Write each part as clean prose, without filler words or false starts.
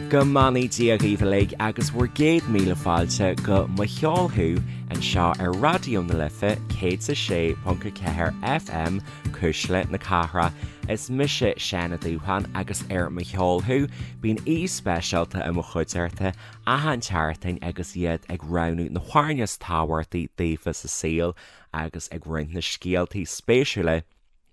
Go mbeannaí Dia dhaoibh uilig agus bhur gcéad míle fáilte go Mo Cheol Thú anseo ar Raidió na Life 106.4 FM, Cuisle na Cathrach. Is mise Seán Ó Dúsháin agus ar Mo Cheol Thú bíonn aoi speisialta i mo chuideachta achan tseachtain agus iad ag roghnú na hamhráin is tábhachtaí daofa sa saol agus ag roinnt na scéaltaí spéisiúla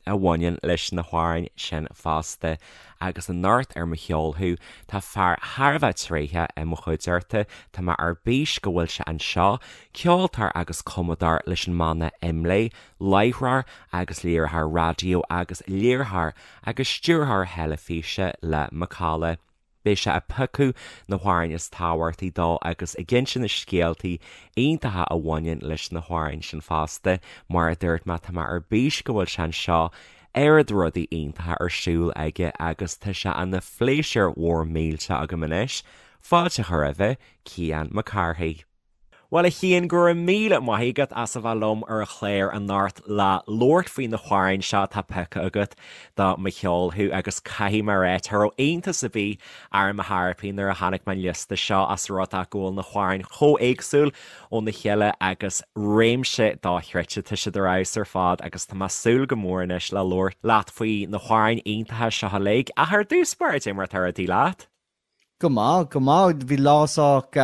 a bhaineann leis na hamhráin sin fosta. Agus anocht ar Mo Cheol Thú, tá fear thar a bheith tréitheach i mo chuideachta, tá mé ar bís go bhfuil sé anseo, ceoltóir agus cumadóir leis an mbanna IMLÉ, láithreoir agus léiritheoir raidió agus léiritheoir agus stiúrthóir teilifíse le Macalla. Beidh sé ag piocadh na hamhráin is tábhachtaí dó agus ag inse na scéaltaí iontacha a bhaineann leis na hamhráin sin fosta. Mar a dúirt mé, tá mé ar bís go bhfuil sé anseo, oiread rudaí iontacha ar siúl aige agus tá sé ina phléisiúr mhór millteach agam anois fáilte a chur roimhe, Cian Mac Cárthaigh. Bhuel, a Chiain, go raibh míle maith agat as a bheith liom ar an chlár anocht le labhairt faoi na hamhráin seo atá pioctha agat do Mo Cheol Thú agus caithfidh mé a rá, cha raibh iontas ar bith orm ar chor ar bith nuair a chonaic mé an liosta seo as rud é go bhfuil na hamhráin chomh éagsúil óna chéile agus réimse dochreidte, tá siad ar fheabhas ar fad agus tá mé ag súil go mór anois le labhairt leat faoi na hamhráin iontacha seo uilig. Ach ar dtús báire, cad é mar atá rudaí leat? Go maith, go maith. Bhí lá sách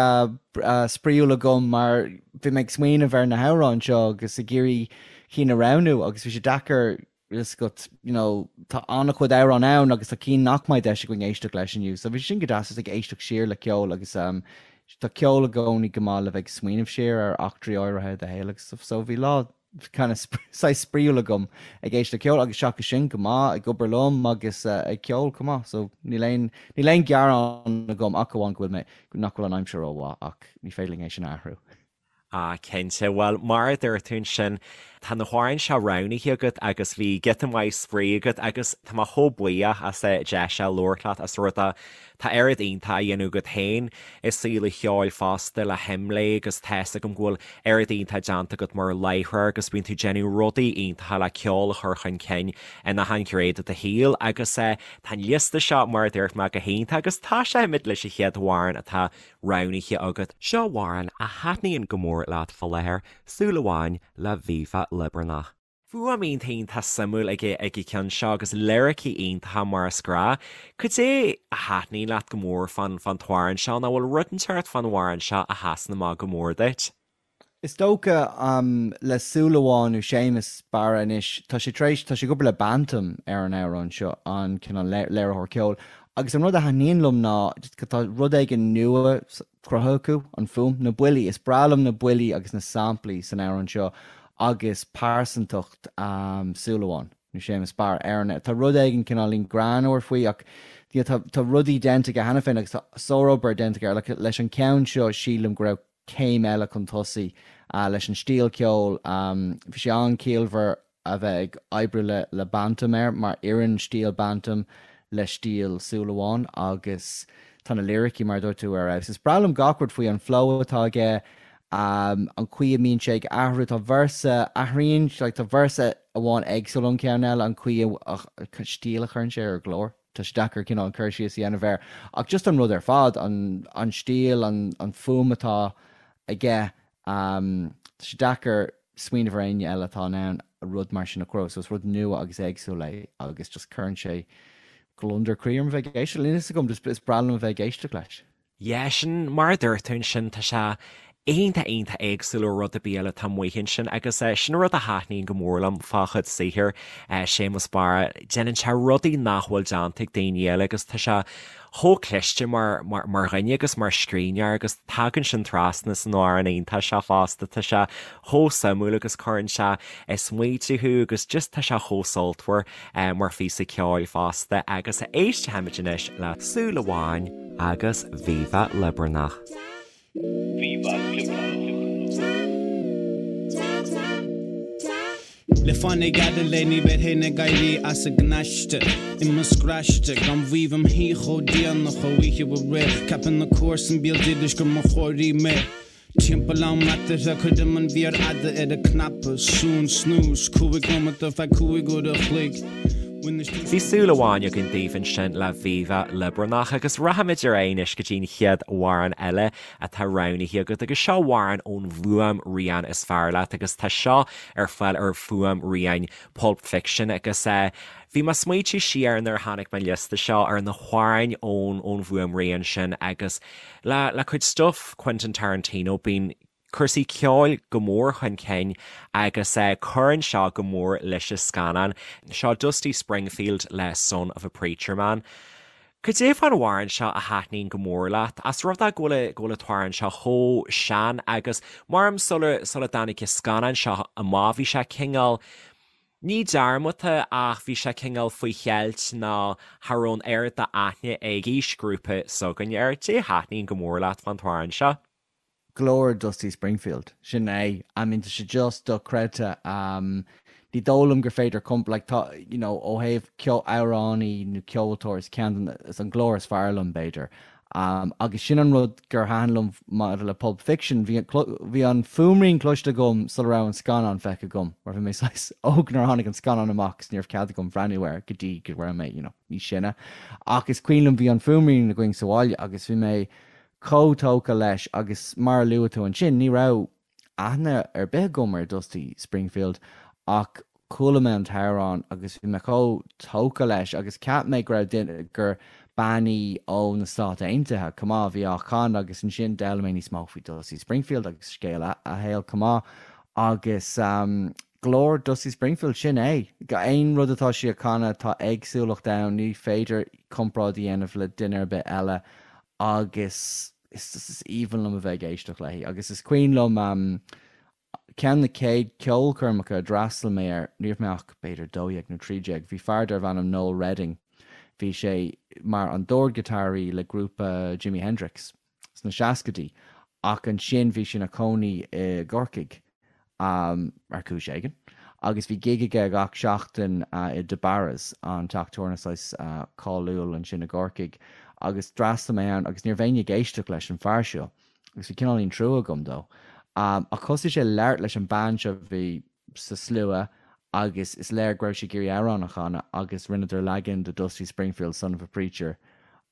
spraíúil agam mar bhí mé ag smaoineamh ar na hamhráin seo agus ag iarraidh cinn a roghnú agus bhí sé deacair is go, you know, tá an-chuid amhrán ann agus tá cinn nach mbeidh deis againn éisteacht leis inniu. So bhí sin go deas just ag éisteacht siar le ceol agus tá ceol i gcónaí go maith le bheith ag smaoineamh siar ar eachtraí áirithe i do shaol agus stuff. So bhí lá kind of saghas spraíúil agam ag éisteacht le ceol agus seachas sin go maith ag obair liom agus ag ceol chomh maith so níl aon níl aon gearán agam ach amháin go bhfuil mé nach bhfuil an aimsir rómhaith ach ní féidir linn é sin a athrú. Ah cinnte, bhuel mar a dúirt tú ansin tá na hamhráin seo roghnaithe agat agus bhí giota maith spraoi agat agus tá mé chomh buíoch as an deis seo labhairt leat as rud é Tá oiread iontach á dhéanamh agat féin i saol an cheoil fosta le hImlé agus tá fhios agam go bhfuil oiread iontach déanta agat mar láithreoir agus bíonn tú ag déanamh rudaí iontacha le ceol a chur chun cinn in achan ghné de do shaol agus tá an liosta seo mar a dúirt mé go hiontach agus tosóimid leis an chéad amhrán atá roghnaithe agat. Seo amhrán a thaitníonn go mór leat fá láthair, Súil Amháin le Viva Liobarnach. Fuaim iontach iontach suimiúil ag ag an cheann seo agus liricí iontacha mar is gnáth. Cad é a thaitníonn leat go mór fán fán t-amhrán seo nó bhfuil rud inteacht fán amhrán seo a sheasann amach go mór duit? Is dócha le Súil Amháin nó Séamus Barra anois, tá sé tar éis, tá sé ag obair le Bantum ar an amhrán seo, an cineál léiritheoir ceoil, agus an rud a thaitníonn liom ná tá rud éigin nua cruthaithe acu, an fuaim, na buillí, is breá liom na buillí agus na samplaí san amhrán seo agus pearsantacht Súil Amháin, nó Séamus Barra, ar an, tá rud éigin cineáilín greannmhar faoi ach you know, tá rudaí déanta aige cheana féin agus tá sárobair déanta aige like, leis an ceann seo sílim go raibh céim eile chun tosaigh leis an stíl ceoil, bhí sé an-chiallmhar a bheith ag oibriú le le Bantum air mar oireann stíl Bantum le stíl Súil Amháin agus tá na liricí mar a dúirt tú ar fheabhas. Is breá liom gach rud faoi, an flow atá aige, an chaoi a mbíonn sé ag athrú, tá véarsa, athraíonn, like tá véarsa amháin éagsúil ón ceann eile, an chaoi a, stíl a chuireann sé ar a ghlór. Tá sé deacair cineál cur síos a dhéanamh air ach just an rud ar fad, an an stíl, an an fuaim atá aige, Tá sé deacair smaoineamh ar éinne eile atá in ann rud mar sin a chruthú, so is rud nua agus éagsúil é agus just cuireann sé gliondar croí orm a bheith ag éisteacht, níl a fhios agam, just is breá liom a bheith ag éisteacht leis. Yeah, sin mar a dúirt tú ansin, tá sé iontach iontach éagsúil ó rud ar bith eile atá amuigh ansin agus sin rud a thaitníonn go mór liom fá chuid saothair Séamus Barra, déanann sé rudaí nach bhfuil déanta ag daoine eile agus tá sé chomh cliste mar mar dhuine agus mar scríbhneoir agus tagann sin trasna san amhrán iontach seo fosta. Tá sé chomh suimiúil agus cuireann sé ag smaoitiú thú agus just tá sé chomh sultmhar mar phíosa ceoil fosta agus éistfimid anois le Súil Amháin agus Viva Liobarnach. Viva Liobarnach. Le fáinne gearra léi ní bheinn féin ag éirí as an gcnaiste I mo scraiste gan mhaíomh im shuí chomh déanach ó oíche aréir Ceapann na comharsain béal dorais gur mo chóirí mé Timpeall am eatarthu cuirim an mhéar fhada ar an cnaipe Suan snooze 5 nóimeat ar feadh 5 uair a chloig. Bhí súil amháin againn daoibh ansin le Viva Liobarnach agus rachaimid ar aghaidh anois go dtí an chéad amhrán eile atá roghnaithe agat agus seo amhrán ón bhfuaimrian is fearr leat agus tá seo ar fáil ar fuaimrian Pulp Fiction agus bhí mé ag smaointiú siar nuair a chonaic mé an liosta seo ar na hamhráin ón ón bhfuaimrian sin agus le le cuid stuif Quentin Tarantino bíonn cúrsaí ceoil go mór chun cinn agus cuireann seo go mór leis an scannán. Seo Dusty Springfield le Son of a Preacher Man. Cad é fán amhrán seo a thaitníonn go mór leat? As rud é go bhfuil go bhfuil an t-amhrán seo chomh sean agus maram sula sula dtáinig an scannán seo amach bhí sé cineál ní dearmadta ach bhí sé cineál faoi cheilt nó cha raibh an oiread d'aithne ag aoisghrúpa s'againne air. Cad é a thaitníonn go mór leat fán t-amhrán seo? Glór Dusty Springfield. Sin é. I mean, tá sé just dochreidte. Ní dóigh liom gur féidir comp, like, tá, you know, ó thaobh ceo, amhránaí nó ceoltóir, is ceann de na, is an glór is fearr liom, b'fhéidir. Agus sin an rud gur thaitin liom maidir le Pulp Fiction, bhí, bhí an fuaimrian cloiste agam sula raibh an scannán feicthe agam, mar bhí mé saghas óg nuair a tháinig an scannán amach agus ní raibh cead agam breathnú air go dtí go raibh mé, you know, níos sine. Ach is cuimhin liom bhí an fuaimrian againn sa bhaile agus bhí mé chomh tógtha leis agus mar a luaigh tú ansin, ní raibh aithne ar bith agam ar Dusty Springfield ach chuala mé an t-amhrán agus bhí mé chomh tógtha leis agus cheap mé go raibh duine, gur bean í ó na Stáit Aontaithe chomh maith a bhí á chanadh agus ansin d'fhoghlaim mé níos mó faoi Dusty Springfield agus scéal a shaoil chomh maith agus glór Dusty Springfield, sin é. Aon rud atá sí a chanadh tá éagsúlacht ann, ní féidir comparáid a dhéanamh le duine ar bith eile agus is just is aoibhinn liom a bheith ag éisteacht léi agus is cuimhin liom ceann na chéad ceolchoirmeacha a d'fhreastail mé air, ní raibh mé ach b'fhéidir 12 nó 13, bhí fear darbh ainm Noel Redding, bhí sé mar an dordghiotáraí le grúpa Jimi Hendrix sna seascaidí ach ansin bhí sé ina chónaí i gCorcaigh ar chúis éigin, agus bhí gig aige gach seachtain i DeBarra's, an teach tabhairne saghas cáiliúil ansin i gCorcaigh, agus d'fhreastail mé ann agus ní raibh éinne ag éisteacht leis an fear seo agus bhí cineáilín trua agam dó. Ach thosaigh sé ag labhairt leis an bean seo a bhí sa slua agus is léir go raibh sí ag iarraidh amhrán a chanadh agus rinneadar leagan de Dusty Springfield, Son of a Preacher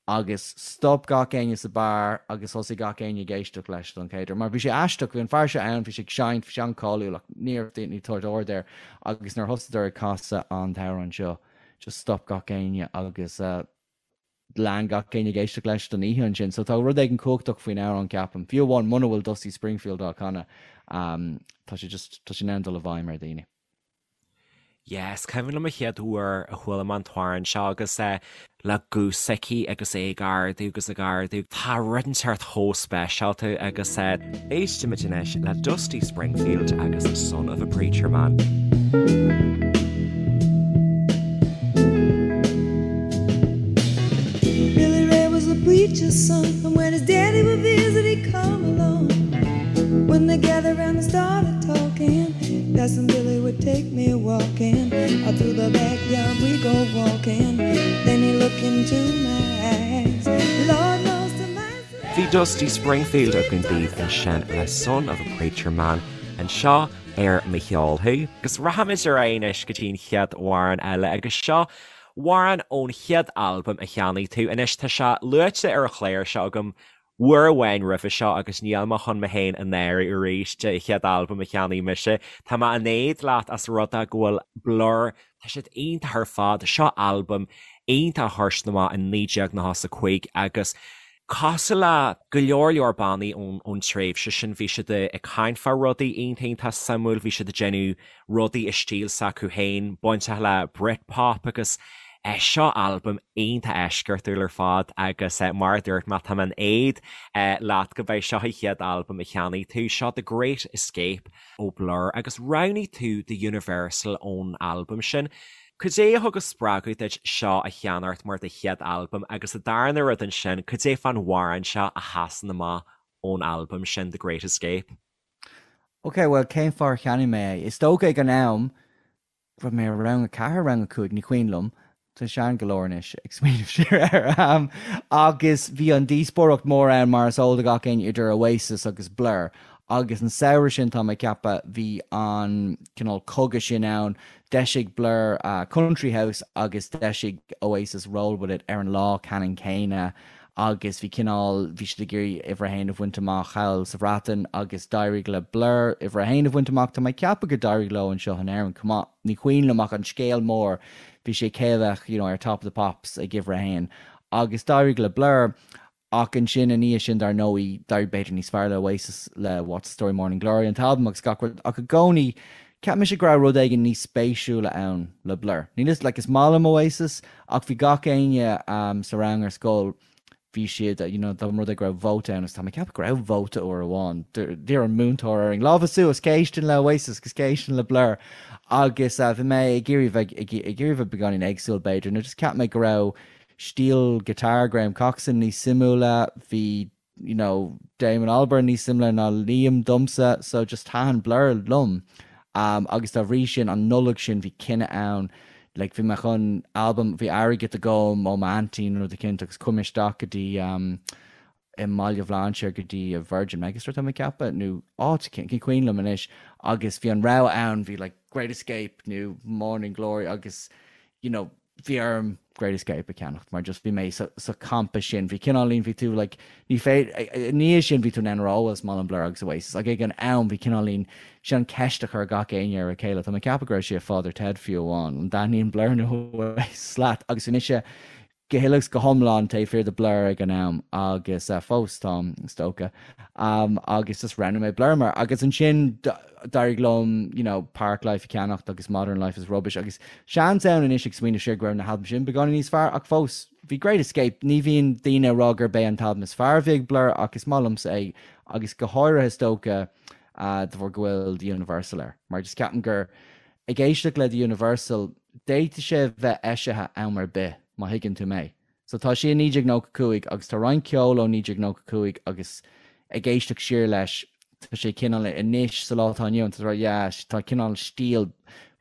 agus stop gach éinne sa beár agus thosaigh gach éinne ag éisteacht leis don chéad uair mar bhí sé aisteach, bhí an fear seo ann, bhí sé ag seinnt, bhí sé an-cáiliúil ach ní raibh daoine ag tabhairt aird air agus nuair a thosaíodar ag casadh an t-amhrán seo just stop gach éinne agus lean gach éinne ag éisteacht leis don oíche ansin. So tá rud éigin cumhachtach faoin amhrán ceapaim, fiú amháin muna bhfuil Dusty Springfield á chanadh, tá sé just, tá sé in ann dul i bhfeidhm ar dhaoine. Yeah, is cuimhin liom an chéad uair a chuala mé an t-amhrán seo agus é le guth s'aici agus é ag ardú agus ag ardú. Tá rud inteacht chomh speisialta agus éistimid anois le Dusty Springfield agus Son of a Preacher Man. Billy Ray was a preacher's son, and when his daddy would visit, he'd come along. When they gathered round and started talking, Cousin Billy would take me walking. Out through the backyard we go walking. Then he looked into my eyes. Lord knows to my Bhí Dusty Springfield againn daoibh ansin le Son of a Preacher Man anseo ar Mo Cheol Thú. Agus rachaimid ar aghaidh anois go dtí an chéad amhrán eile agus seo amhrán ón chéad albam a cheannaigh tú. Anois tá sé luaite ar an chlár seo agam uair amháin roimhe seo agus níl mé chun mé féin a náiriú arís de chéad albam a cheannaigh mise. Tá mé in éad leat as rud é go bhfuil Blur, tá siad iontach ar fad, seo albam iontach a chuir siad amach in 1995 agus cosúil le go leor leor bannaí ón tréimhse sin bhí siad ag caint fá rudaí iontach iontach suimiúil, bhí siad ag déanamh rudaí i stíl s'acu féin, bainteach le Britpop agus seo albam iontach eisceachtúil ar fad agus mar a dúirt mé, tá mé in éad leat go mbeidh seo an chéad albam a cheannaigh tú, seo The Great Escape ó Blur agus roghnaigh tú The Universal ón albam sin. Cad é a thug an spreagadh duit seo a cheannacht mar do chéad albam agus an darna rud ansin, cad é fán amhrán seo a sheasann amach ón albam sin The Great Escape? Ok, bhuel, cén fáth ar cheannaigh mé é? Is dócha ag an am, raibh mé i rang a ceathair, rang a cúig, ní cuimhin liom, tá sean go leor anois ag smaoineamh siar air, agus bhí an díospóireacht mór ann mar is eol do gach éinne idir Oasis agus Blur. Agus an samhradh sin, tá mé ag ceapadh, bhí an cineál cogadh sin ann, d'eisigh Blur Country House agus d'eisigh Oasis Roll With It ar an lá ceannann céanna agus bhí cineál, bhí siad ag iarraidh uimhir a haon a bhaint amach thall sa Bhreatain agus d'éirigh le Blur uimhir a haon a bhaint amach. Tá mé ag ceapadh gur d'éirigh leo anseo in Éirinn chomh maith, ní cuimhin liom ach an scéal mór, bhí sé cé a bheadh you know ar Top of the Pops ag uimhir a haon agus d'éirigh le Blur. Ach ansin, ina dhiaidh sin, dar ndóigh, d'éirigh b'fhéidir níos fearr le Oasis le What's the Story Morning Glory, an t-albam agus gach rud, ach i gcónaí, cheap mise go raibh rud éigin níos spéisiúla ann le Blur. Níl 'fhios, like, is maith liom Oasis, ach bhí gach éinne sa rang ar scoil, bhí siad, you know, dá mba rud é go raibh vóta ann, agus tá mé ag ceapadh go raibh vóta uair amháin, d'iarr an múinteoir orainn, lámha suas, cé a éisteann le Oasis agus cé a éisteann le Blur? Agus bhí mé ag iarraidh bheith, ag iarraidh bheith beagáinín éagsúil, b'fhéidir, nó just cheap mé go raibh, Stíl guitar Graham Coxon níos suimiúla, bhí you know Damon Albarn níos suimiúla ná Liam domsa so just thaitin Blur liom um agus dá bhrí sin an Nollaig sin bhí cinneadh ann like bhí mé chun albam, bhí airgead agam ó m'aintín nó rud eicínt agus chuaigh mé isteach go dtí um i mBaile Bhlainséir go dtí Virgin Megastore tá mé ag ceapadh nó áit eicínt, ní cuimhin liom anois agus bhí an rogha ann bhí like Great Escape nó Morning Glory agus you know bhí orm Great Escape a cheannacht mar just bhí mé sa, sa champa sin, bhí cineáilín, bhí tú like, ní féidir, ina dhiaidh sin bhí tú in ann a rá, oh well is maith liom Blur agus Oasis ach ag an am bhí cineáilín, sin an ceist a chuir gach éinne ar a chéile, tá mé ag ceapadh go raibh sé i Father Ted fiú amháin, an dtaitníonn Blur nó Oasis leat agus bhí mise go huile agus go hiomlán taobh thiar de Blur ag an am agus fós táim, is dócha. Agus just roghnaigh mé Blur mar agus ansin d'éirigh liom you know Parklife a cheannacht agus Modern Life is Rubbish agus seans ann anois ag smaoineamh siar go raibh na halbaim sin beagáinín níos fearr ach fós bhí Great Escape, ní bhíonn daoine ag rá gurb é an t-albam is fearr a bhí ag Blur ach is maith liomsa é agus go háirithe is dócha de bharr go bhfuil The Universal air mar just ceapaim gur Ag éisteacht le The Universal, d'fhéadfadh sé a bheith eisithe am ar bith, má thuigeann tú mé. So tá sé i 1995 agus tá roinnt ceoil ó 1995 agus ag éisteacht siar leis, tá sé cineál anois sa lá atá inniu ann, tá tú ag rá yeah, tá cineál stíl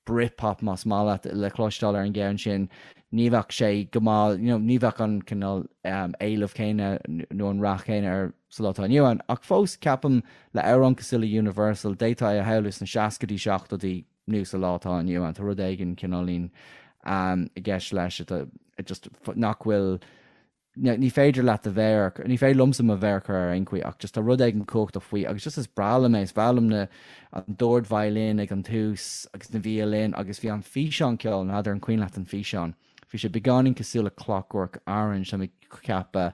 Britpop más maith leat le cloisteáil ar an gceann sin. Ní bheadh sé go maith, you know, ní bheadh an cineál éileamh céanna nó an rath céanna air sa lá atá inniu ann. Ach fós, ceapaim, le amhrán cosúil le Universal, d'fhéadfá é a shamhlú sna seascaidí, seachtóidí nó sa lá atá inniu ann. Tá rud éigin cineáilín i gceist leis atá just nach bhfuil, ní féidir leat do mhéar, ní féidir liomsa mo mhéar a chur air ar aon chaoi ach just tá rud éigin cumhachtach faoi agus just is breá liom é, is breá liom na, an dordveidhlin ag an tús agus na violin agus bhí an físeán ceoil, n'fheadar an cuimhin leat an físeán? Bhí sé beagáinín cosúil le Clockwork Orange, tá mé ag ceapadh.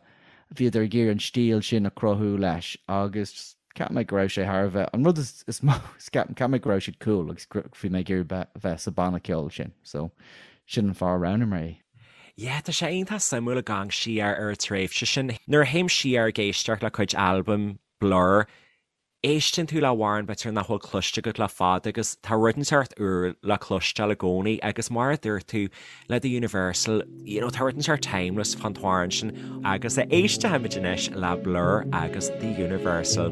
Bhíodar ag iarraidh an stíl sin a chruthú leis agus cheap mé go raibh sé thar a bheith, an rud is mó, cheap mé go raibh siad cool agus bhí mé ag iarraidh bheith sa banna ceoil sin. So, sin an fáth a roghnaigh mé é. Yeah, tá sé iontach suimiúil ag amharc siar ar an tréimhse sin. Nuair a théim siar ag éisteacht le cuid albaim Blur, Éisteann tú le hamhrán b'fhéidir nach bhfuil cloiste agat le fada agus tá rud inteacht úr le cloisteáil i gcónaí agus mar a dúirt tú le The Universal, you know, tá rud inteacht timeless fán t-amhrán sin agus éistfimid anois le Blur agus The Universal.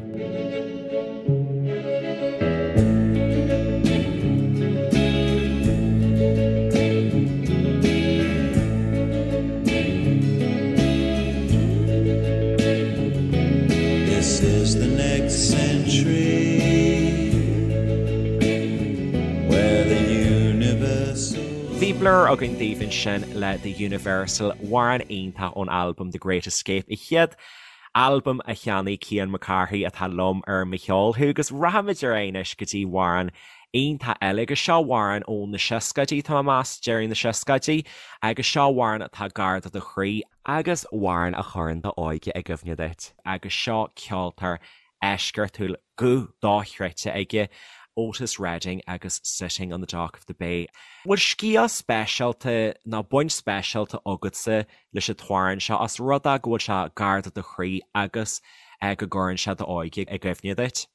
This is the next century where the universal. Bhí Blur againn daoibh ansin le The Universal, amhrán iontach ón albam The Great Escape, an chéad albam a cheannaigh Cian Mac Cárthaigh atá liom ar Mo Cheol Thú agus rachaimid ar aghaidh anois go dtí amhrán iontach eile agus seo amhrán ó na seascaidí, tá mé ag meas, deireadh na seascaidí agus seo amhrán atá gar do do chroí. Agus amhrán a chuireann d'óige i gcuimhne duit. Agus seo ceoltóir eisceachtúil, guth dochreidte aige, Otis Redding agus Sitting on the Dock of the Bay. Bhfuil scéal speisialta nó baint speisialta agatsa leis an t-amhrán seo os rud é go bhfuil sé gar do do chroí agus go gcuireann sé d'óige i gcuimhne duit?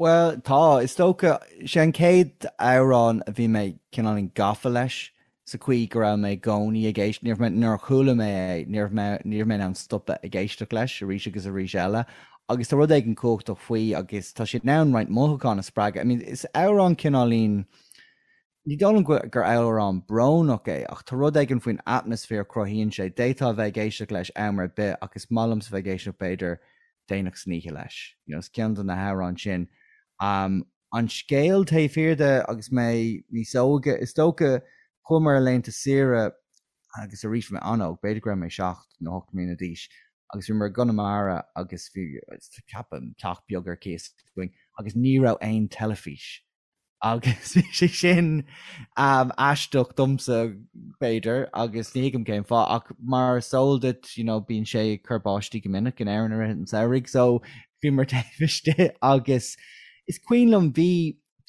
Bhuel, tá. Is dócha, sé an chéad amhrán a bhí mé cineáilín gafa leis, sa chaoi go raibh mé i gcónaí ag éisteacht, ní raibh mé, nuair a chuala mé é, ní raibh mé, ní raibh mé in ann stopadh ag éisteacht leis arís agus arís eile. Agus tá rud éigin cumhachtach faoi agus tá sé in ann roinnt mothúchán a spreagadh. I mean, is amhrán cineáilín, ní dóigh liom gur amhrán brónach é ach tá rud éigin faoin atmaisféar a chruthaíonn sé. D'fhéadfá a bheith ag éisteacht leis am ar bith ach is maith liomsa bheith ag éisteacht b'fhéidir. déanach san oíche leis. You know, is ceann de na hamhráin sin. Um, an scéal taobh thiar de agus mé níos óige, is dócha chuamar ar laethanta saoire agus arís bhí mé an-óg, b'fhéidir go raibh mé 7 nó 8 mbliana d'aois, agus bhíomar i gConamara agus bhí, ceapaim, teach beag ar cíos againn agus ní raibh aon teilifís agus bhí sé sin aisteach domsa b'fhéidir agus ní thuigim cén fáth ach mar is eol duit you know bíonn sé ag cur báistí go minic in Éirinn i rith an tsamhraidh so bhíomar taobh istigh agus is cuimhin liom bhí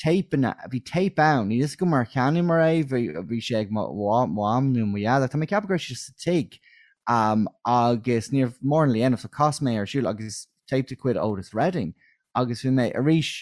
téipeanna, bhí téip ann, níl fhios agam ar cheannaíomar é, bhí, bhí sé ag mo mham nó mo dhaid ach tá mé ag ceapadh go raibh sé sa tigh agus ní raibh mórán le dhéanamh so chas mé ar siúl agus téip de chuid Otis Redding agus bhí mé, arís,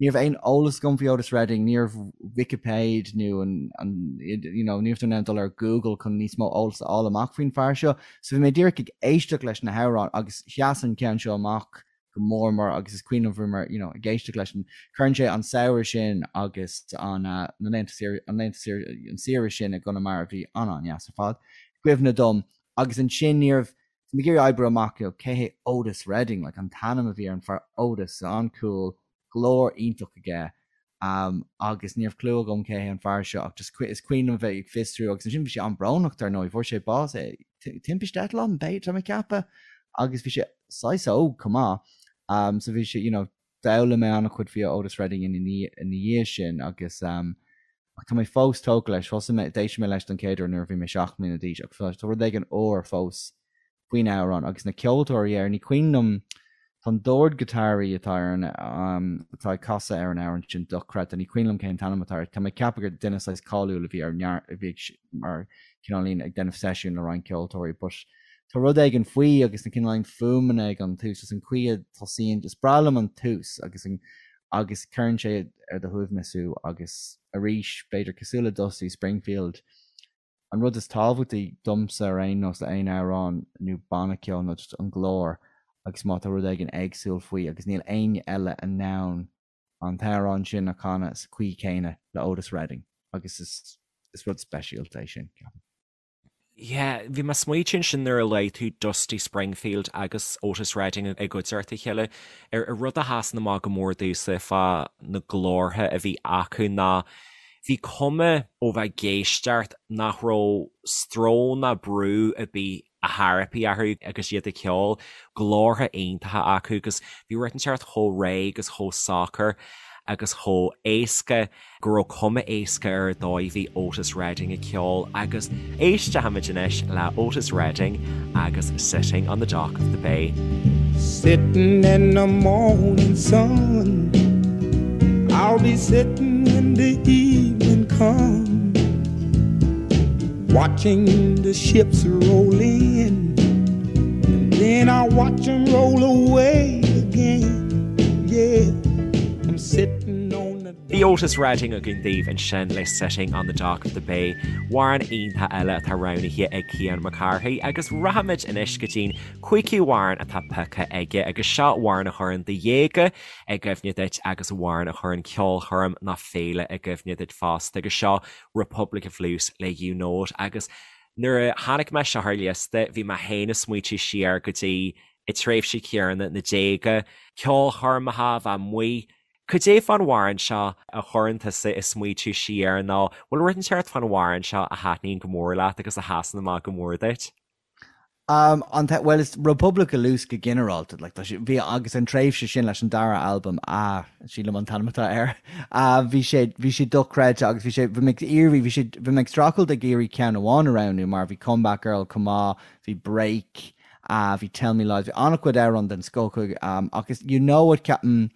ní raibh aon eolas agam faoi Otis Redding, ní raibh Wikipéid nó an, an, you know, ní raibh tú in ann dul ar Google chun níos mó eolas a fháil amach faoin fear seo. So bhí mé díreach ag éisteacht leis na hamhráin agus sheas an ceann seo amach go mór mór agus is cuimhin liom bhí mé, you know, ag éisteacht leis an, cuireann sé an samhradh sin agus an, na laethanta saoire, an laethanta saoire, an saoire sin i gConamara a bhí an-an-deas ar fad, i gcuimhne dom agus ansin ní raibh, bhí mé ag iarraidh oibriú amach, you know, cé hé Otis Redding, like an t-ainm a bhí ar an fear Otis, an-cool, glór iontach aige um, agus ní raibh clue agam cé hé an fear seo ach just is cuimhin liom bheith ag fiosrú agus ansin bhí sé an-bhrónach dar ndóigh, fuair sé bás eh, timpiste eitleáin b'fhéidir tá mé ag ceapadh agus bhí sé saghas óg chomh maith um, so bhí sé you know, d'fhoghlaim mé an-chuid faoi Otis Redding ina dhiaidh sin agus um, ach tá mé fós tógtha leis, thosaigh mé, d'éist mé leis don chéad uair nuair a bhí mé 7 mbliana d'aois ach tá rud éigin úr fós faoin amhrán agus na ceoltóirí air, ní cuimhin liom, tá an dordghiotáraí atá ar an, atá ag casadh ar an amhrán sin dochreidte, ní cuimhin liom cén t-ainm atá air, tá mé ag ceapadh gur duine saghas cáiliúil a bhí ar neart, a bhí ag, mar cineáilín ag déanamh seisiún le roinnt ceoltóirí but tá rud éigin faoi agus na cineáilín fuaimeanna ag an tús is an chaoi a tosaíonn, is breá liom an tús agus an, agus cuireann sé ar do shuaimhneas thú agus arís b'fhéidir cosúil le Dusty Springfield, An rud is tábhachtaí domsa ar aon nós le aon amhrán nó banna ceoil ná just an glór agus má tá rud éigin éagsúil faoi agus níl éinne eile in ann an t-amhrán sin a chanadh sa chaoi chéanna le Otis Redding agus is is rud speisialta é sin, ceapaim. Yeah, bhí mé ag smaoitiú ansin nuair a luaigh tú Dusty Springfield agus Otis Redding i gcuideachta a chéile, ar rud a sheasann amach go mór domhsa fá na glórtha a bhí acu ná Bhí cuma ó bheith ag éisteacht nach raibh stró ná brú ar bith a tharraipí orthu agus iad ag ceol, glórtha iontacha acu agus bhí rud inteacht chomh réidh agus chomh socair agus chomh éasca go raibh cuma éasca ar an dóigh a bhí Otis Redding ag ceol agus éistfimid anois le Otis Redding agus Sitting on the Dock of the Bay. Sitting in the morning sun I'll be sitting when the evening comes Watching the ships roll in And then I'll watch them roll away again Yeah, I'm sitting on the Bhí Otis Redding againn daoibh ansin le Sitting on the Dock of the Bay, amhrán iontach eile atá roghnaithe ag Cian Mac Cárthaigh agus rachaimid anois go dtí'n cúigiú amhrán atá pioctha aige agus seo amhrán a chuireann do dhéaga i gcuimhne duit agus amhrán a chuireann ceolchoirm ná féile i gcuimhne duit fosta agus seo Republic of Loose le You Know It agus nuair a chonaic mé seo ar liosta bhí mé féin ag smaoitiú siar go dtí an tréimhse chéanna, na déaga, ceolchoirmeacha, bheith amuigh Cad é fán amhrán seo a chuireann tusa ag smaoitiú siar nó bhfuil rud inteacht fán amhrán seo a thaitníonn go mór leat agus a sheasann amach go mór duit? Um, an te, well, is Republic of Loose go ginearálta, like, tá sé, bhí, agus an tréimhse sin leis an dara albam, ah, sílim an t-ainm atá air, ah, bhí sé, bhí sé dochreidte agus bhí sé, bhí mé ag iarraidh, bhí sé, bhí mé ag streachailt ag iarraidh ceann amháin a roghnú mar bhí Comeback Girl chomh maith, bhí Break, ah, bhí Tell Me Lies, bhí an-chuid amhrán den scoth acu, um, agus You Know It, ceapaim,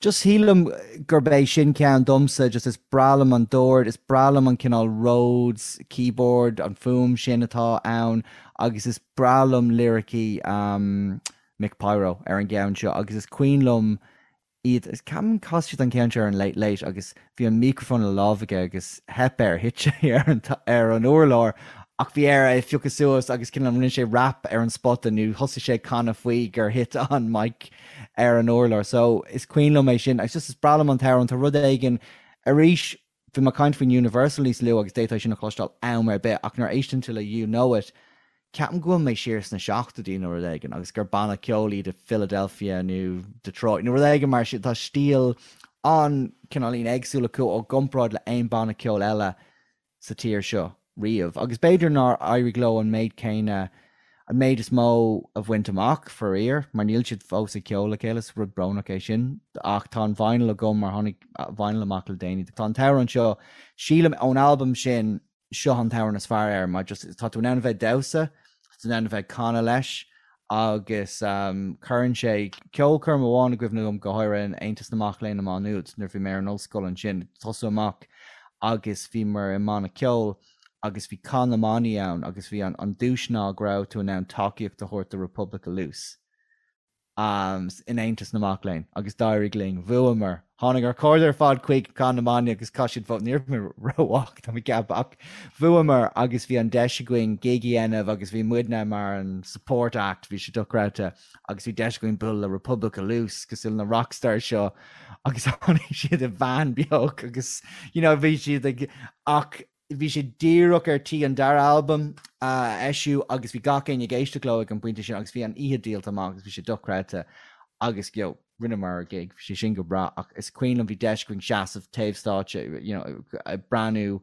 just sílim gurb é sin ceann domsa, just is breá liom an dord, is breá liom an cineál Rhodes keyboard, an fuaim sin atá ann, agus is breá liom liricí um, Mick Pyro ar an gceann seo, agus is cuimhin liom iad, ceapaim chas siad an ceann seo ar an Late Late agus bhí an microphone i lámh aige agus theip air, thit sé ar an ar an urlár ach bhí air é a phiocadh suas agus cineál rinne sé rap ar an spota nó thosaigh sé ag canadh faoi gur thit an mic ar an urlár. So is cuimhin liom é sin agus just is breá liom an t-amhrán, tá rud éigin arís bhí mé ag caint faoin Universal níos luaithe agus d'fhéadfá sin a chloisteáil am ar bith ach nuair a éisteann tú le You Know It. Ceapaim go bhfuil mé siar sna seachtóidí nó rud éigin agus gur banna ceoil iad i Philadelphia nó Detroit nó rud éigin mar sin. Tá stíl an-cineáilín éagsúil acu i gcomparáid le aon banna ceoil eile sa tír seo riamh. Agus b'fhéidir nár éirigh leo an méid céanna, an méid is mó a bhaint amach, faraor, mar níl siad fós ag ceol le chéile, is rud brónach é sin. Ach tá an vinyl agam mar tháinig vinyl amach le déanaí. Tá an t-amhrán seo, sílim, ón albam sin, seo an t-amhrán is fearr air mar just tá tú in ann a bheith ag damhsa, tá tú in ann a bheith ag canadh leis agus cuireann sé ceolchoirm amháin i gcuimhne dom go háirithe in Aontas na Mac Léinn i Má Nuad nuair a bhí mé ar an ollscoil ansin, tosú amach agus bhíomar i mbanna ceoil agus bhí Cath na mBannaí ann agus bhí an duais ná go raibh tú in ann tacaíocht a thabhairt do Republic of Loose. in Aontas na Mac Léinn agus d'éirigh linn. Bhuamar. Tháinig ár cairde ar fad chuig Cath na mBannaí agus chaith siad vóta. Ní raibh mé rómhaith, tá mé ag ceapadh, ach bhuamar agus bhí an deis againn gig a dhéanamh agus bhí muidne mar an support act, bhí sé dochreidte agus bhí deis againn bualadh le Republic of Loose cosúil na rockstars seo agus tháinig siad i veain beag agus you know bhí siad ag ach Bhí sé díreach ar tí an dara albam a eisiú agus bhí gach éinne ag éisteacht leo ag an bpointe sin agus bhí an oíche díolta amach agus bhí sé dochreidte agus you know rinneamar ár gig, bhí sé sin go breá ach is cuimhin liom bhí deis againn seasamh taobh stáitse you know ag breathnú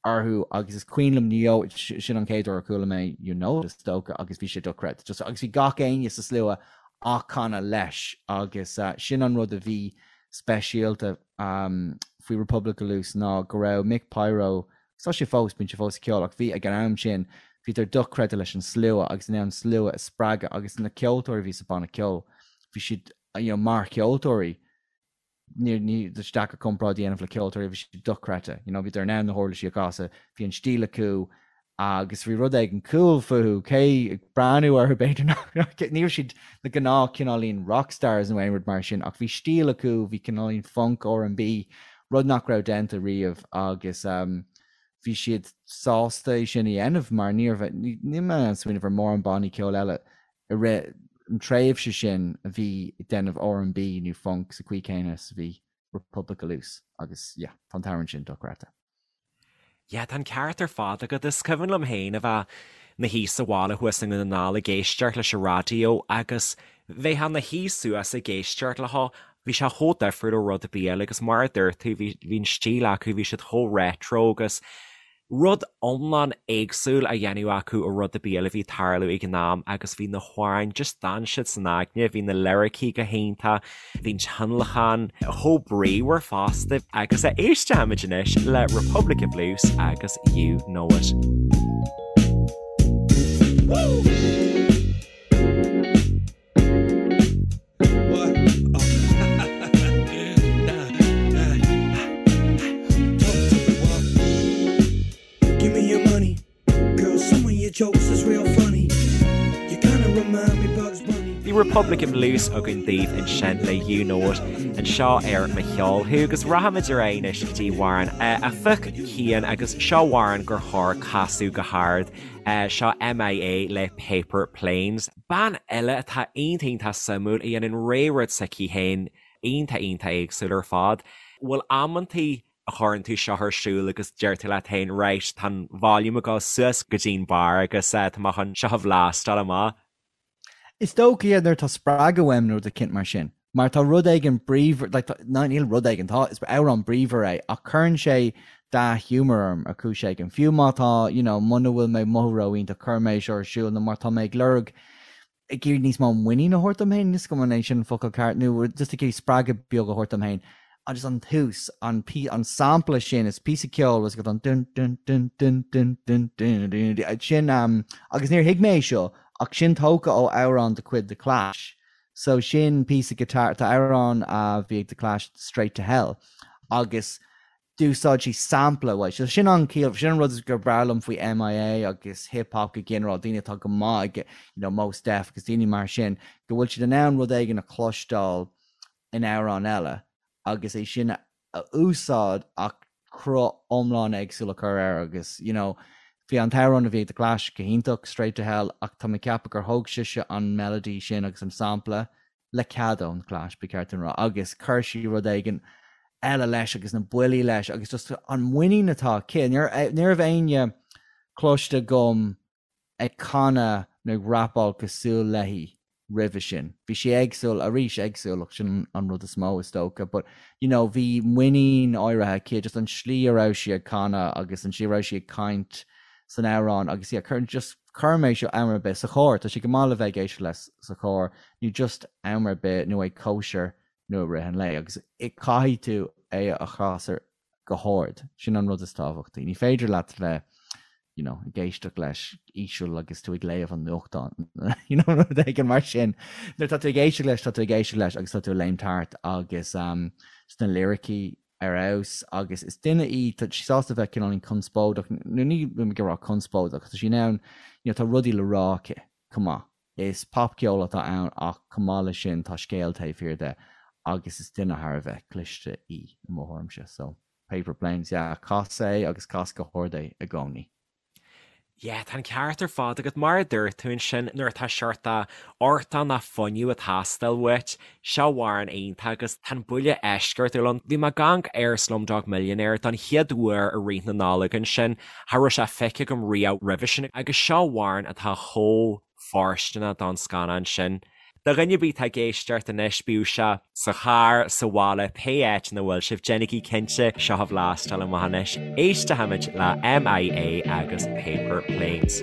orthu agus is cuimhin liom you know sin an chéad uair a chuala mé You Know It is dócha agus bhí sé dochreidte just agus bhí gach éinne sa slua á canadh leis agus sin an rud a bhí speisialta faoi Republic of Loose ná go raibh Mick Pyro, agus tá sé fós, bíonn sé fós ag ceol, ach bhí ag an am sin, bhíodar dochreidte leis an slua agus in ann an slua a spreagadh agus na ceoltóirí a bhí sa banna ceoil, bhí siad, you know, mar cheoltóirí, ní, ní, tá sé deacair comparáid a dhéanamh le ceoltóirí, bhí siad dochreidte, you know, bhíodar in ann na huirlisí a chasadh, bhí an stíl acu, agus bhí rud éigin cool fúthu, cé ag breathnú orthu b'fhéidir nach, ní raibh siad na gnáth cineáilín rockstars nó aon rud mar sin ach bhí stíl acu, bhí cineáilín funk, R&B, rud nach raibh déanta riamh agus bhí siad sásta é sin a dhéanamh mar ní raibh, níl mé in ann smaoineamh ar mórán bannaí ceoil eile i rith an tréimhse sin a bhí ag déanamh R&B nó funk sa chaoi céanna is a bhí Republic of Loose agus yeah, tá an t-amhrán sin dochreidte. Yeah, tá an ceart ar fad agat. Is cuimhin liom féin a bheith 'mo shuí sa bhaile thuas i nDún na nGall ag éisteacht leis an raidió agus bheifeá 'na shuí suas ag éisteacht leo, bhí sé chomh difriúil ó rud ar bith eile agus mar a dúirt tú, bhí, bhí an stíl acu, bhí siad chomh retro agus rud iomlán éagsúil á dhéanamh acu ó rud ar bith eile a bhí ag tarlú ag an am agus bhí na hamhráin, just d'fhan siad san aigne, bhí na liricí go hiontach, bhí an tionlacan chomh bríomhar fosta agus éistfimid anois le Republic of Loose agus You Know It. Bhí Republic of Loose againn daoibh ansin le You Know It anseo ar Mo Cheol Thú agus rachaimid ar aghaidh anois go dtí amhrán a phioc Cian agus seo amhrán gur chóir casadh go hard. Seo MIA le Paper Planes. Bean eile atá iontach iontach suimiúil a dhéanann rogha rud s'aici féin iontach iontach éagsúil ar fad. Bhfuil amantaí a chuireann tú seo ar siúl agus deir tú leat féin right tá an volume ag dul suas go dtí'n barr agus tá mé chun seo a bhlastáil amach. Is dócha yeah nuair atá spreagadh uaim nó rud eicínt mar sin. Mar tá rud éigin bríomhar, like, tá, ná níl rud éigin, tá, is amhrán bríomhar é, ach cuireann sé dea-ghiúmar orm ar chúis éigin. Fiú má tá, you know, muna bhfuil mé ag mothú ró-iontach, cuirim é seo ar siúl, nó má tá mé ag lorg, ag iarraidh níos mó muinín a thabhairt dom féin, níl 'fhios agam an é sin an focal ceart, nó just ag iarraidh spreagadh beag a thabhairt dom féin. Agus an tús, an, an sampla sin, is píosa ceoil, is an dun dun dun dun dun dun dun dun dun, sin, um, agus níor thuig mé é seo, ach sin tógtha ó amhrán de chuid The Clash. So sin píosa guitar, tá amhrán a bhí ag The Clash Straight to Hell agus d'úsáid sí sampla uaidh. So sin an ciall, sin an rud is gur breá liom faoi MIA agus hip hop go ginearál, daoine atá go maith ag, you know, Mos Def agus daoine mar sin, go bhfuil siad in ann rud éigin a chloisteáil in amhrán eile agus é sin a úsáid ach cruth iomlán éagsúil a chur air agus, you know, bhí an t-amhrán a bhí ag The Clash go hiontach, Straight to Hell, ach tá mé ag ceapadh gur thóg sise an melody sin agus an sampla, le cead ón Clash, ba cheart dom a rá, agus chuir sí rud éigin eile leis agus na buillí leis agus just an muinín atá aici. Ní raibh éinne cloiste agam. ag canadh nó ag rapáil cosúil léi roimhe sin. Bhí sí éagsúil, arís éagsúlacht, sin an rud is mó is dócha, but you know bhí muinín áirithe aici, just an slí a raibh sí ag canadh agus an slí a raibh sí ag caint san amhrán agus yeah, cuir, just cuirim é seo am ar bith sa charr, tá sé go maith le bheith ag éisteacht leis sa charr nó just am ar bith nó ag cóisir nó i rith an lae agus caithfidh tú é a chasadh go hard. Sin an rud is tábhachtaí. Ní féidir leat bheith you know, ag éisteacht leis íseal agus tú ag léamh an nuachtáin, you know, rud éigin mar sin. Nuair tá tú ag éisteacht leis, tá tú ag éisteacht leis agus tá tú ag léimt thart agus um, sna liricí ar fheabhas agus is duine í, tá sí sásta bheith cineáilín conspóideach, nó ní ag rá conspóideach, tá sí in ann, you know, tá rudaí le rá aici chomh maith. Is popcheol atá ann ach chomh maith leis sin tá scéal taobh thiar de agus is duine thar a bheith cliste í i mo thuairimse. So, Paper Planes, yeah, cas é agus cas go hard é i gcónaí. Yeah, tá an ceart ar fad agat. Mar a dúirt tú ansin, nuair atá seort artán ná fuinneamh ag teastáil uait, seo amhrán iontach agus tá an buille eisceachtúil ann. Bhí mé ag amharc ar Slumdog Millionaire don chéad uair i rith na Nollag ansin, cha raibh sé feicthe agam riamh roimhe sin agus seo amhrán atá chomh fóirsteanach don scannán sin. Do dhuine ar bith atá ag éisteacht anois, bíodh sé sa charr, sa bhaile, pé áit ina bhfuil sibh, déanaigí cinnte seo a bhlastáil amach anois. Éistfimid le MIA agus Paper Planes.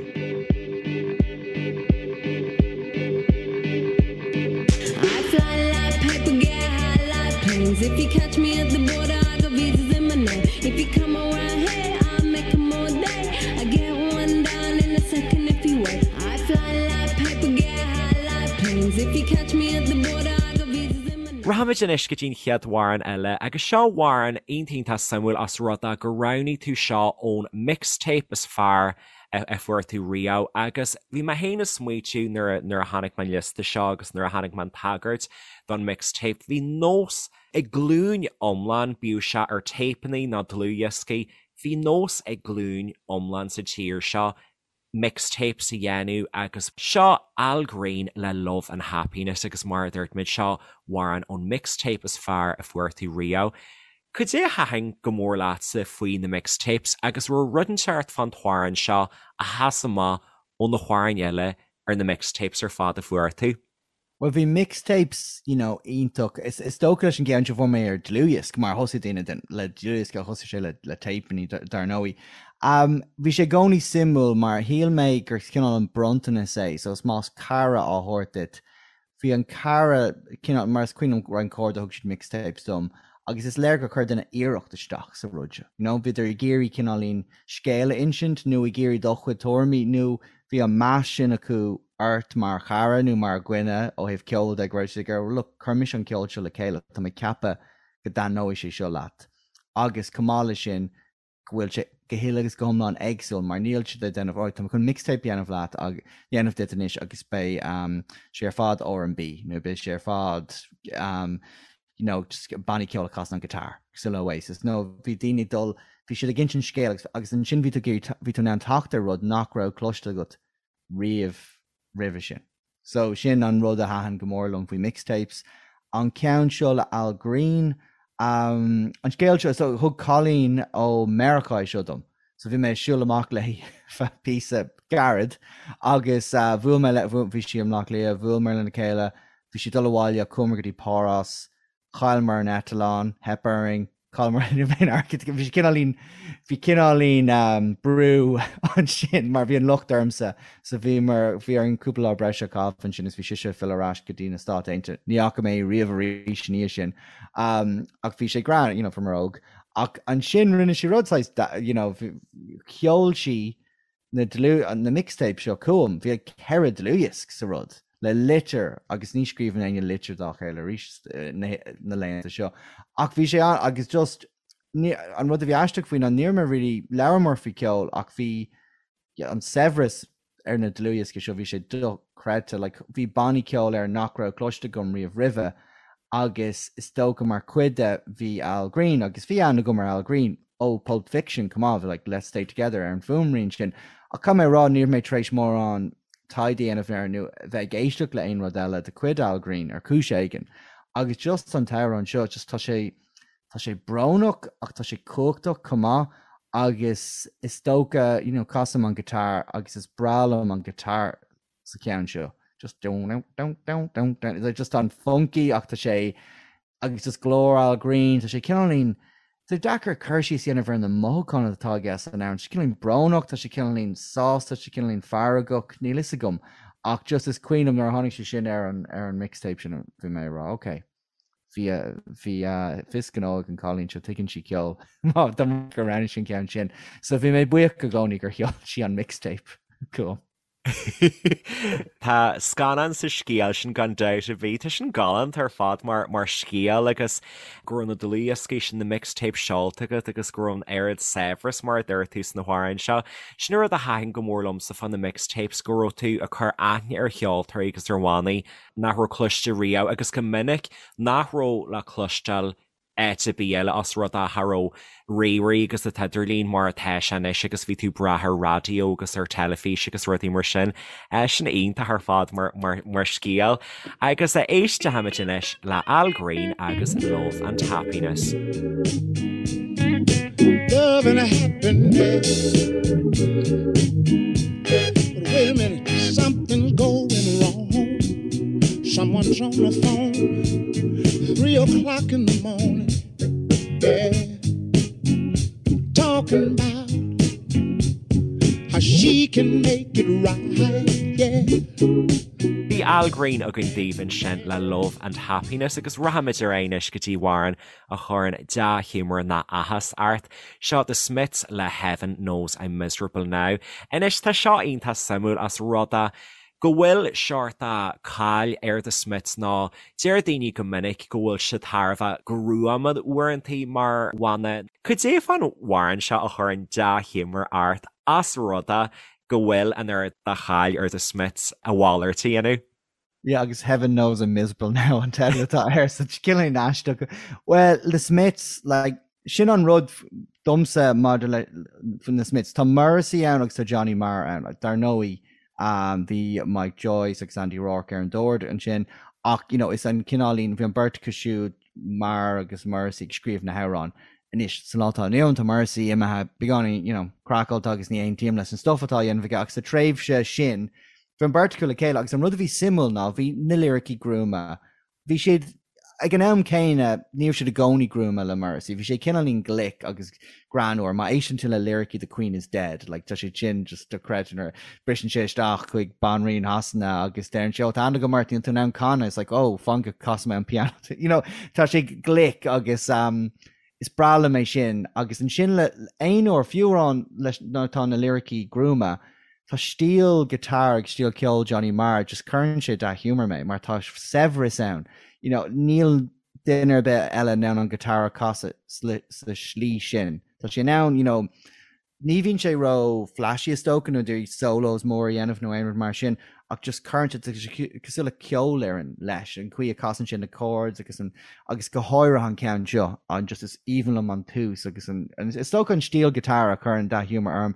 I fly like paper, get high like planes. If you catch me at the border, I got visas in my name. If you come around here, I'll make 'em all day. I get one down in a second if you wait. I fly like paper, get high like planes. If you catch me at the border, I got visas in my name. Rachaimid anois go dtí an chéad amhrán eile agus seo amhrán iontach iontach suimiúil os rud é gur roghnaigh tú seo ón mixtape is fearr a fuair tú riamh agus bhí mé féin ag smaoitiú nuair a nuair a chonaic mé an liosta seo agus nuair a chonaic mé an tagairt don mixtape bhí nós ag glúin iomlán, bíodh sé ar téipeanna nó dlúthdhioscaí, bhí nós ag glúin iomlán sa tír seo mixtapes a dhéanamh agus seo Al Green le Love and Happiness agus mar a dúirt muid seo amhrán ón mixtape is fearr a fuair tú riamh. Cad é a thaitin go mór leatsa faoi na mixtapes agus raibh rud inteacht fán t-amhrán seo a sheas amach ó na hamhráin eile ar na mixtapes ar fad a fuair tú? Bhuel bhí mixtapes, you know, iontach. Is, is dócha leis an gceann seo fuair mé ar dlúthdhiosc, mar thosaigh daoine den, le dlúthdhiosc a thosaigh sé le, le téipeanna dar ndóigh. Um, bhí sé i gcónaí suimiúil mar shíl mé gur cineál an bronntanas é, so is más cara á thabhairt duit, Bhí an cara, cineál, mar is cuimhin liom roinnt cairde thug siad mixtapes dom agus is léir gur chuir duine iarracht isteach sa rud seo. You know, bhíodar ag iarraidh cineáilín scéal a insint nó ag iarraidh do chuid tuairimí nó bhí an meas sin acu ort mar chara nó mar dhuine ó thaobh ceoil de go raibh siad ag iarraidh, look, chuir mise an ceol seo le chéile, tá mé ag ceapadh go dtaitneoidh sé seo leat. Agus chomh maith leis sin, go bhfuil sé go huile agus go hiomlán éagsúil mar níl siad ag déanamh alright tá mé chun mixtape a dhéanamh leat ag dhéanamh duit anois agus beidh um, sé ar fad R&B nó beidh sé ar fad um, you know, just bannaí ceoil a chasann an guitar cosúil le Oasis nó bhí daoine ag dul bhí siad ag insint scéal agus, agus ansin bhí tú bhí tú in ann teacht ar rud nach raibh cloiste agat riamh roimhe sin. So sin an rud a thaitin go mór liom faoi mixtapes. An ceann seo le Al Green, um, an scéal seo, so thug cailín ó Meiriceá é seo dom. So bhí mé ag siúl amach léi feadh píosa gairid agus uh, bhuail mé le, bhí sí i mBleá Cliath, bhuaileamar lena chéile, bhí sí ag dul abhaile, chuamar go dtí Páras, Chailleamar an eitleán, theip orainn, chailleamar aon airgead, bhí sé cineáilín, bhí cineáilín brú ansin mar bhí an locht ormsa, so bhíomar, bhí orainn cúpla lá breise a chaitheamh ansin is bhí sise ag filleadh ar ais go dtí na Stáit Aontaithe. Ní fhaca mé í riamh arís ina dhiaidh sin. Ach bhí sé greann, you know, fuair óg. Ach ansin rinne sí rud saghas, you know, sheol sí na dlúth, na mixtape seo chugam, bhí 4 dlúthdhiosc sa rud, le litir agus ní scríobhann éinne litir dá chéile arís na laethanta seo. Ach bhí sé an, agus just, ní, an rud a bhí aisteach faoi ná ní raibh mé really, labhramar faoi ceol ach bhí an saibhreas ar na dlúthdhioscaí seo, bhí sé dochreidte, like bhí bannaí ceoil air nach raibh cloiste agam riamh roimhe agus is dócha mar chuid de bhí Al Green agus bhí aithne agam ar Al Green ó Pulp Fiction chomh maith, bhí like Let's Stay Together ar an bhfuaimrian sin ach caithfidh mé a rá ní raibh mé tar éis mórán taighde a dhéanamh air nó bheith ag éisteacht le aon rud eile de chuid Al Green ar chúis éigin agus just an t-amhrán seo just tá sé tá sé brónach ach tá sé cumhachtach chomh maith. Agus is dócha, you know, casaim an guitar agus is breá liom an guitar sa cheann seo. Just dun dun dun dun dun dun. It's just an-funky ach tá sé agus just glór Al Green, tá sé cineáilín Tá sé deacair cur síos a dhéanamh ar na mothúcháin atá aige san amhrán. Tá sé cineáilín brónach, tá sé cineáilín sásta, tá sé cineáilín feargach, níl fhios agam. Ach just is cuimhin liom nuair a tháinig sé sin ar an ar an mixtape sin bhí mé ag rá ok. Bhí bhí fios gnó ag an cailín seo, tuigeann sí ceol. Má dá mba gur roghnaigh sí an ceann sin. So bhí mé buíoch i gcónaí gur sheol sí an mixtape chugam. Tá scannán sa scéal sin gan dabht ar bith. Tá sin galánta ar fad mar mar scéal agus go raibh na dlúthdhioscaí sin, na mixtapes seolta agat agus go raibh an oiread saibhreas mar a dúirt tú sna hamhráin seo. Sin an rud a thaitin go mór liomsa fá na mixtapes, go raibh tú ag cur aithne ar cheoltóirí agus ar bhannaí nach raibh cloiste riamh agus go minic nach raibh le cloisteáil áit ar bith eile os rud é cha raibh ríomhairí agus an t-idirlíon mar atá sé anois agus bhí tú ag brath ar raidió agus ar teilifís agus rudaí mar sin. Sin iontach ar fad mar, mar, mar scéal. Agus éistfimid anois le Al Green agus Love and Happiness. Love and happiness. But wait a minute, something's going wrong. Someone's on the phone, 3 o'clock in the morning. Yeah, talking about how she can make it right. Yeah. Bhí Al Green againn daoibh ansin le Love and Happiness agus rachaimid ar aghaidh anois go dtí amhrán a chuireann dea-ghiúmar ná áthas ort. Seo The Smiths le Heaven Knows I'm Miserable Now. Anois tá seo iontach suimiúil os rud é go bhfuil seort de cháil ar The Smiths nó deir daoine go minic go bhfuil siad thar a bheith gruama uaireantaí mar bhanna. Cad é fán amhrán seo a chuireann dea-ghiúmar ort os rud é go bhfuil an oiread de cháil ar The Smiths a mhalairt a dhéanamh? Yeah, agus Heaven Knows I'm Miserable Now an teideal atá air, so cineál aisteach. Well, The Smiths, like, sin an rud domsa maidir le na Smiths. Tá Morrissey ann agus tá Johnny Marr ann. Like, dar ndóigh, um, bhí Mike Joyce agus Andy Rourke ar an dord ansin, ach, you know, is an cineáilín, bhí an beirt acu siúd, Marr agus Morrissey ag scríobh na hamhráin. Anois, sa lá atá inniu ann, tá Morrissey imithe beagáinín, you know, craiceáilte agus ní aontaím leis an stuff atá á dhéanamh aige, ach sa tréimhse sin, bhí an beirt acu le chéile agus an rud a bhí suimiúil ná bhí na liricí gruama. Bhí siad, ag an am céanna, ní raibh siad i gcónaí gruama le Morrissey. Bhí sé cineáilín glic agus greannmhar. Má éisteann tú le liricí The Queen is Dead, like, tá sé sin just dochreidte nuair a briseann sé isteach chuig Banríon Shasana agus deireann sé, oh, tá aithne agam ort, níl tú in ann canadh. It's like, oh, fan go gcasfaidh mé an piano. You know, tá sé glic agus um, is breá liom é sin. Agus ansin le aon uair, fiú amhrán leis nuair atá na liricí gruama, tá stíl guitar agus stíl ceoil Johnny Marr, just cuireann sé dea-ghiúmar mé mar tá saibhreas ann. You know, níl duine ar bith eile in ann an guitar a chasadh sa slí sin. Tá sé in ann, you know, ní bhíonn sé ró flashy is dócha nó d'iarraidh solos mór a dhéanamh nó aon rud mar sin ach just cuireann sé tá sé cosúil le ceolfhoireann leis, an chaoi a casann sé na chords agus an agus go háirithe an ceann seo, an just is aoibhinn liom an tús agus an is dócha an stíl guitar a chuireann dea-ghiúmar orm.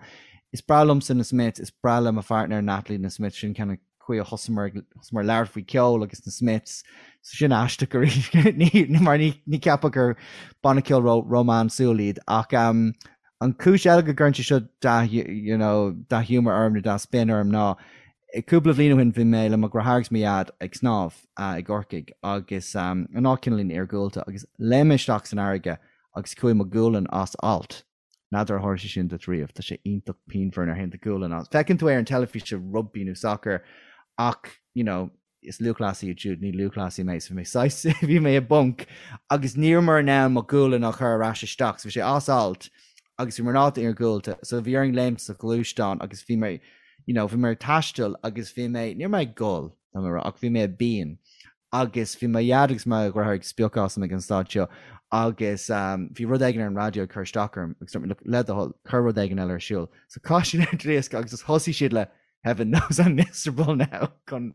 Is breá liomsa na Smiths, is breá le mo pháirtnéir Natalie na Smiths, sin ceann chaoi a thosaíomar ag thosaíomar labhairt faoi ceol agus na Smiths. So sin aisteach arís ní mar ní ní cheapfá gur banna ceoil ró rómánsúil iad ach um, an cúis eile go gcuireann sé seo dea you know, dea-ghiúmar orm nó dea-spion orm ná cúpla bhliain ó shin bhí mé le mo dheartháir agus mo dhaid ag snámh uh, i gCorcaigh agus um, an áit cineáilín iargúlta agus léim mé isteach san fharraige agus chuaigh mo ghualainn as alt. N'fheadar ar tharla sé sin duit riamh, tá sé iontach pianmhar nuair a théann do ghualainn as. Feiceann tú é ar an teilifís i rugbaí nó sacar ach, you know, is lúthchleasaí iad siúd, ní lúthchleasaí mé, so bhí mé saghas, bhí mé i bponc agus ní rabhamar in ann mo ghualainn a chur ar ais isteach, so bhí sé as alt agus bhíomar in áit iargúlta, so bhí orainn léimt sa ghluaisteán agus bhí mé, you know, bhí mé ag taisteal agus bhí mé, ní raibh mé ag gol, tá mé ag rá, ach bhí mé i bpian agus bhí mo dhaid agus mo dheartháir ag spiocadh asam ag an staid seo agus bhí rud éigin ar an raidió ag cur isteach orm agus dúirt mé, look, le do thoil, cuir rud éigin eile ar siúl. So chaith siad an diosca agus just thosaigh siad le Heaven knows I'm miserable now chun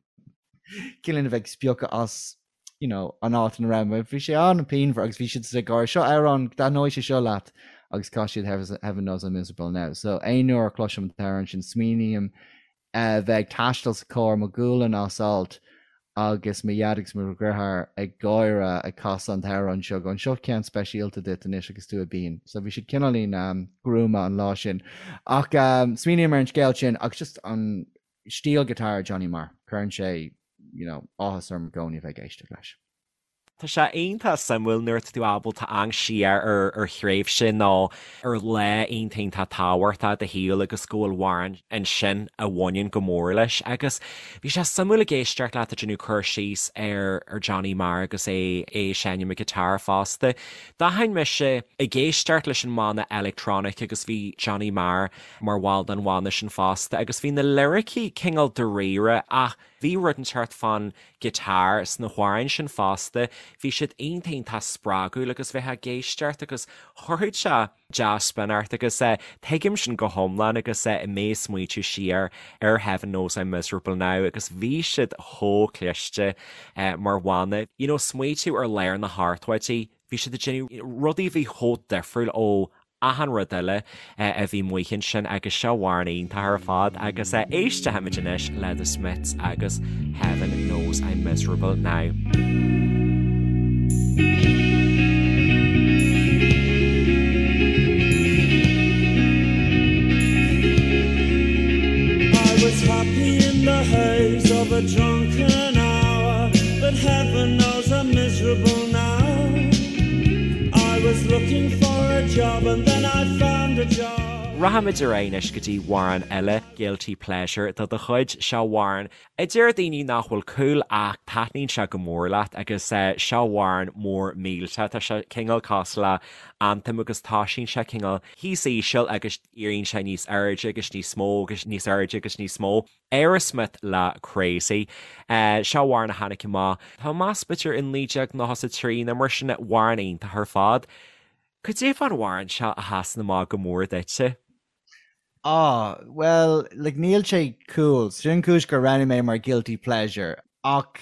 cineál a bheith ag spiocadh as you know, an áit ina raibh mé. Bhí sé an-pianmhar agus bhí siad ag gáire, seo amhrán, taitneoidh sé seo leat agus chaith siad Heaven knows I'm miserable now. So aon uair a chloisim an t-amhrán sin smaoiním a bheith ag taisteal sa charr, mo ghualainn as alt. Agus mo dhaid agus mo dheartháir ag gáire ag casadh an t-amhrán seo, going seo ceann speisialta duit anois agus tú ag bean. So bhí siad cineáilín gruama an lá sin. Ach smaoiním ar an scéal sin agus just an stíl guitar Johnny Marr, cuireann sé you know, áthas orm i gcónaí a bheith ag éisteacht leis. Tá sé iontach suimiúil nuair atá tú ábalta amharc siar ar ar thréimhse nó ar lá iontach iontach tábhachtach i do shaol agus go bhfuil amhrán ansin a bhaineann go mór leis. Agus bhí sé suimiúil ag éisteacht leat ag déanamh cur síos ar ar Johnny Marr agus é é ag seinm an guitar fosta. D'aithin mise ag éisteacht leis an mbanna Electronic agus bhí Johnny Marr mar bhall den bhanna sin fosta agus bhí na liricí cineál dáiríre ach bhí rud inteacht fán guitar sna hamhráin sin fosta, bhí siad iontach iontach spreagúil agus bheifeá ag éisteacht agus chuirfeadh sé dea-spion ort agus tuigim sin go hiomlán agus mé ag smaoitiú siar ar Heaven Knows I'm Miserable Now agus bhí siad chomh cliste mar bhanna. You know smaoitiú ar lár na hochtóidí, bhí siad ag déanamh rudaí a bhí chomh difriúil ó achan rud eile a bhí amuigh ansin agus seo amhrán iontach ar fad agus éistfimid anois le The Smiths agus Heaven Knows I'm Miserable Now. I was happy in the haze of a drunken hour, but heaven knows I'm miserable now. I was looking for a job and then I found a job. Rachaimid ar aghaidh anois go dtí amhrán eile, Guilty Pleasure de do chuid. Seo amhrán a deir daoine nach bhfuil cool ach taitníonn sé go mór leat agus seo amhrán mór millteach. Tá sé cineál cosúil le anthem agus toisíonn sé cineál thíos íseal agus éiríonn sé níos airde agus níos mó agus níos airde agus níos mó. Aerosmith le Crazy. Seo amhrán a tháinig amach, tá mé ag meas b'fhéidir i 1993 nó mar sin, amhrán iontach ar fad. Cad é fán amhrán seo a sheasann amach go mór duitse? Ah, bhuel, like níl sé cool, sin an cúis gur roghnaigh mé mar guilty pleasure. Ach,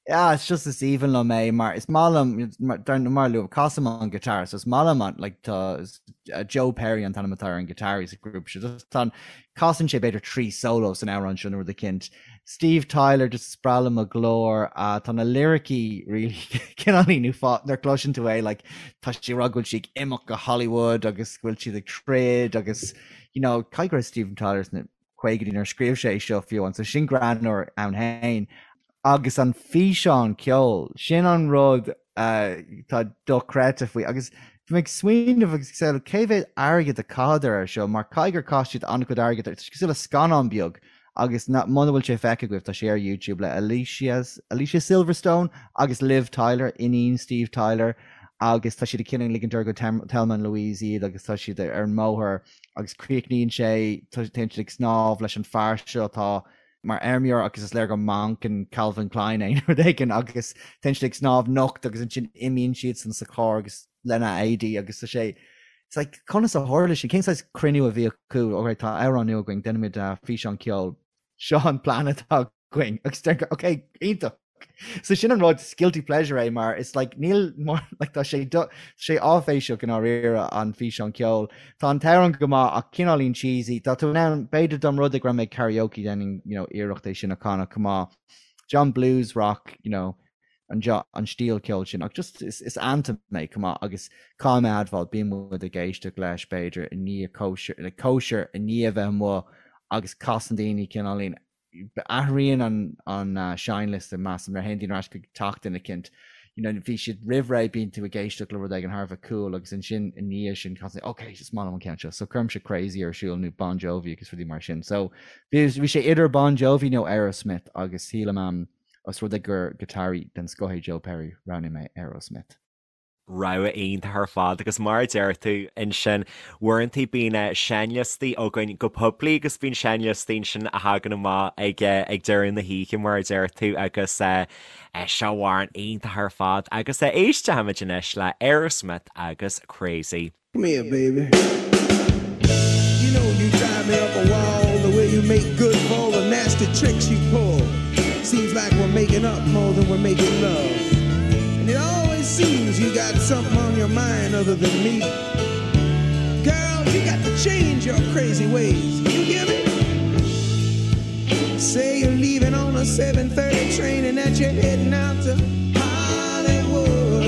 yeah, it's just is aoibhinn liom é mar is maith liom, dar mar luaim, casaim an guitar, so is maith liom an, like, tá Joe Perry an t-ainm atá ar an guitar sa ghrúpa seo, just tá an, casann sé b'fhéidir 3 solo san amhrán seo nó rud eicínt. Steve Tyler, just is breá liom a ghlór, uh, tá na liricí really cineáilín uafásach nuair a chloiseann tú é, like, tá sé ag rá go bhfuil sí ag imeacht go Hollywood agus go bhfuil siad ag troid agus, you know, caithfidh go raibh Steven Tyler sna caogaidí nuair a scríobh sé é seo fiú amháin, so sin greannmhar ann féin. Agus an físeán ceoil, sin an rud atá dochreidte faoi. Agus bhí mé ag smaoineamh agus ag samhlú cé mhéad airgead a caitheadar air seo, mar caithfidh gur chaith siad an-chuid airgid air. Tá sé cosúil le scannán beag agus muna bhfuil sé feicthe agaibh, tá sé ar YouTube le Alicia, Alicia Silverstone agus Liv Tyler, iníon Steve Tyler, agus tá siad ag cineál ligint orthu gur Thelma and Louise iad agus tá siad ar an mbóthar agus críochnaíonn sé, téann siad ag snámh leis an fear seo atá mar fheirmeoir agus is léir gur mannequin Calvin Klein é nó rud éigin agus téann siad ag snámh nocht agus ansin imíonn siadsan sa charr agus lena éadaí agus tá sé It's like conas a tharla sin? Cén saghas cruinniú a bhí acu? Alright, tá amhrán nua againn, déanfaimid físeán ceoil. Seo an plean atá againn. Agus deir ok, iontach. So sin an rud, is guilty pleasure é mar it's like níl mar like tá sé do sé áiféiseach i ndáiríre an físeán ceoil. Tá an t-amhrán go maith ach cineáilín cheesy. Tá tú in ann b'fhéidir dá mba rud é go raibh mé ag karaoke déanfainn you know iarracht é sin a chanadh chomh maith. John blues rock you know an an stíl ceoil sin ach just is is anthem é chomh maith agus caithfidh mé a admháil bíonn muid ag éisteacht leis b'fhéidir i ndiaidh cóisir like cóisir i ndiaidh a bheith amuigh agus casann daoine cineáilín athraíonn an an seinnliosta measaim nuair a théann daoine ar ais chuig teach duine eicínt you know bhí siad roimh ré bíonn tú ag éisteacht le rud éigin thar a bheith cool agus ansin i ndiaidh sin casann ok is maith liom an ceann seo so cuirimse Crazy ar siúl nó Bon Jovi agus rudaí mar sin so bhí bhí sé idir Bon Jovi nó Aerosmith agus sílim am os rud é gur giotáraí den scoth é Joe Perry roghnaigh mé Aerosmith. Rogha iontach ar fad agus mar a deir tú ansin, uaireanta bíonn seinnliostaí againn go poiblí agus bíonn seinnliostaí ansin a thagann amach ag ag deireadh na hoíche mar a deir tú agus seo amhrán iontach ar fad agus éistfimid anois le Aerosmith agus Crazy. Come here, baby. You know you drive me up a wall the way you make good for all the nasty tricks you pull. Seems like we're making up more than we're making love. And it always seems you got something on your mind other than me. Girl, you got to change your crazy ways. You hear me? Say you're leaving on on a 7:30 train and that you're heading out to Hollywood.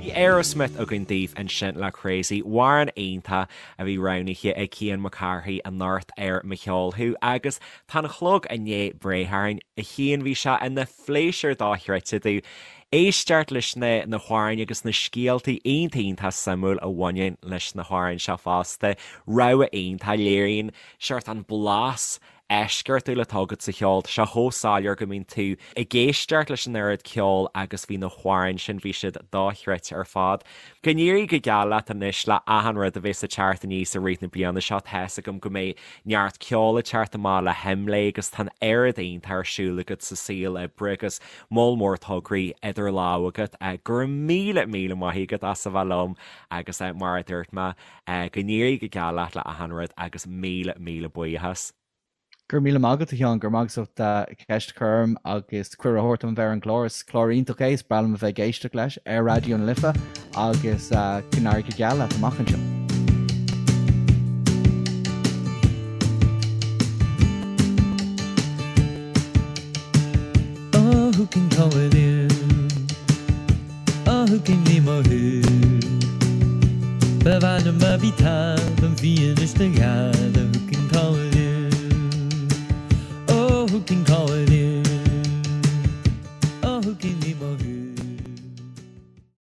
Bhí Aerosmith againn daoibh ansin le Crazy, amhrán iontach a bhí roghnaithe ag Cian Mac Cárthaigh anocht ar Mo Cheol Thú agus tá an clog i ndiaidh breith orainn. A Chian, bhí sé ina phléisiúr dochreidte domh éisteacht leis na na hamhráin agus na scéaltaí iontach iontach suimiúil a bhaineann leis na hamhráin seo fosta. Rogha iontach, léiríonn seort an blas eisceachtúil atá agat sa cheol. Tá sé chomh soiléir go mbíonn tú ag éisteacht leis an oiread ceoil agus bhí na hamhráin sin, bhí siad dochreidte ar fad. Go n-éirí go geal leat anois le achan rud a bheas ag teacht aníos i rith na bliana seo. Tá's agam go mbeidh neart ceoil ag teacht amach le hImlé agus tá an oiread iontach ar siúl agat sa saol oibre agus moll mór tograí idir lámha agat. Go raibh míle míle maith agat as a bheith liom agus mar a dúirt mé, Go n-éirí go geal leat le achan rud agus míle míle buíochas. Go raibh míle maith agat a Sheáin, go raibh maith agat as ucht ceist a chur orm agus cuireadh a thabhairt dom bheith ar an gclár. Is clár iontach é, is breá liom a bheith ag éisteacht leis ar Raidió na Life agus go n-éirí go geal leat amach anseo. Oh who can call it in? Oh who can name a who? Ba mhaith liom a bhí talamh bhí anois do ghealbh.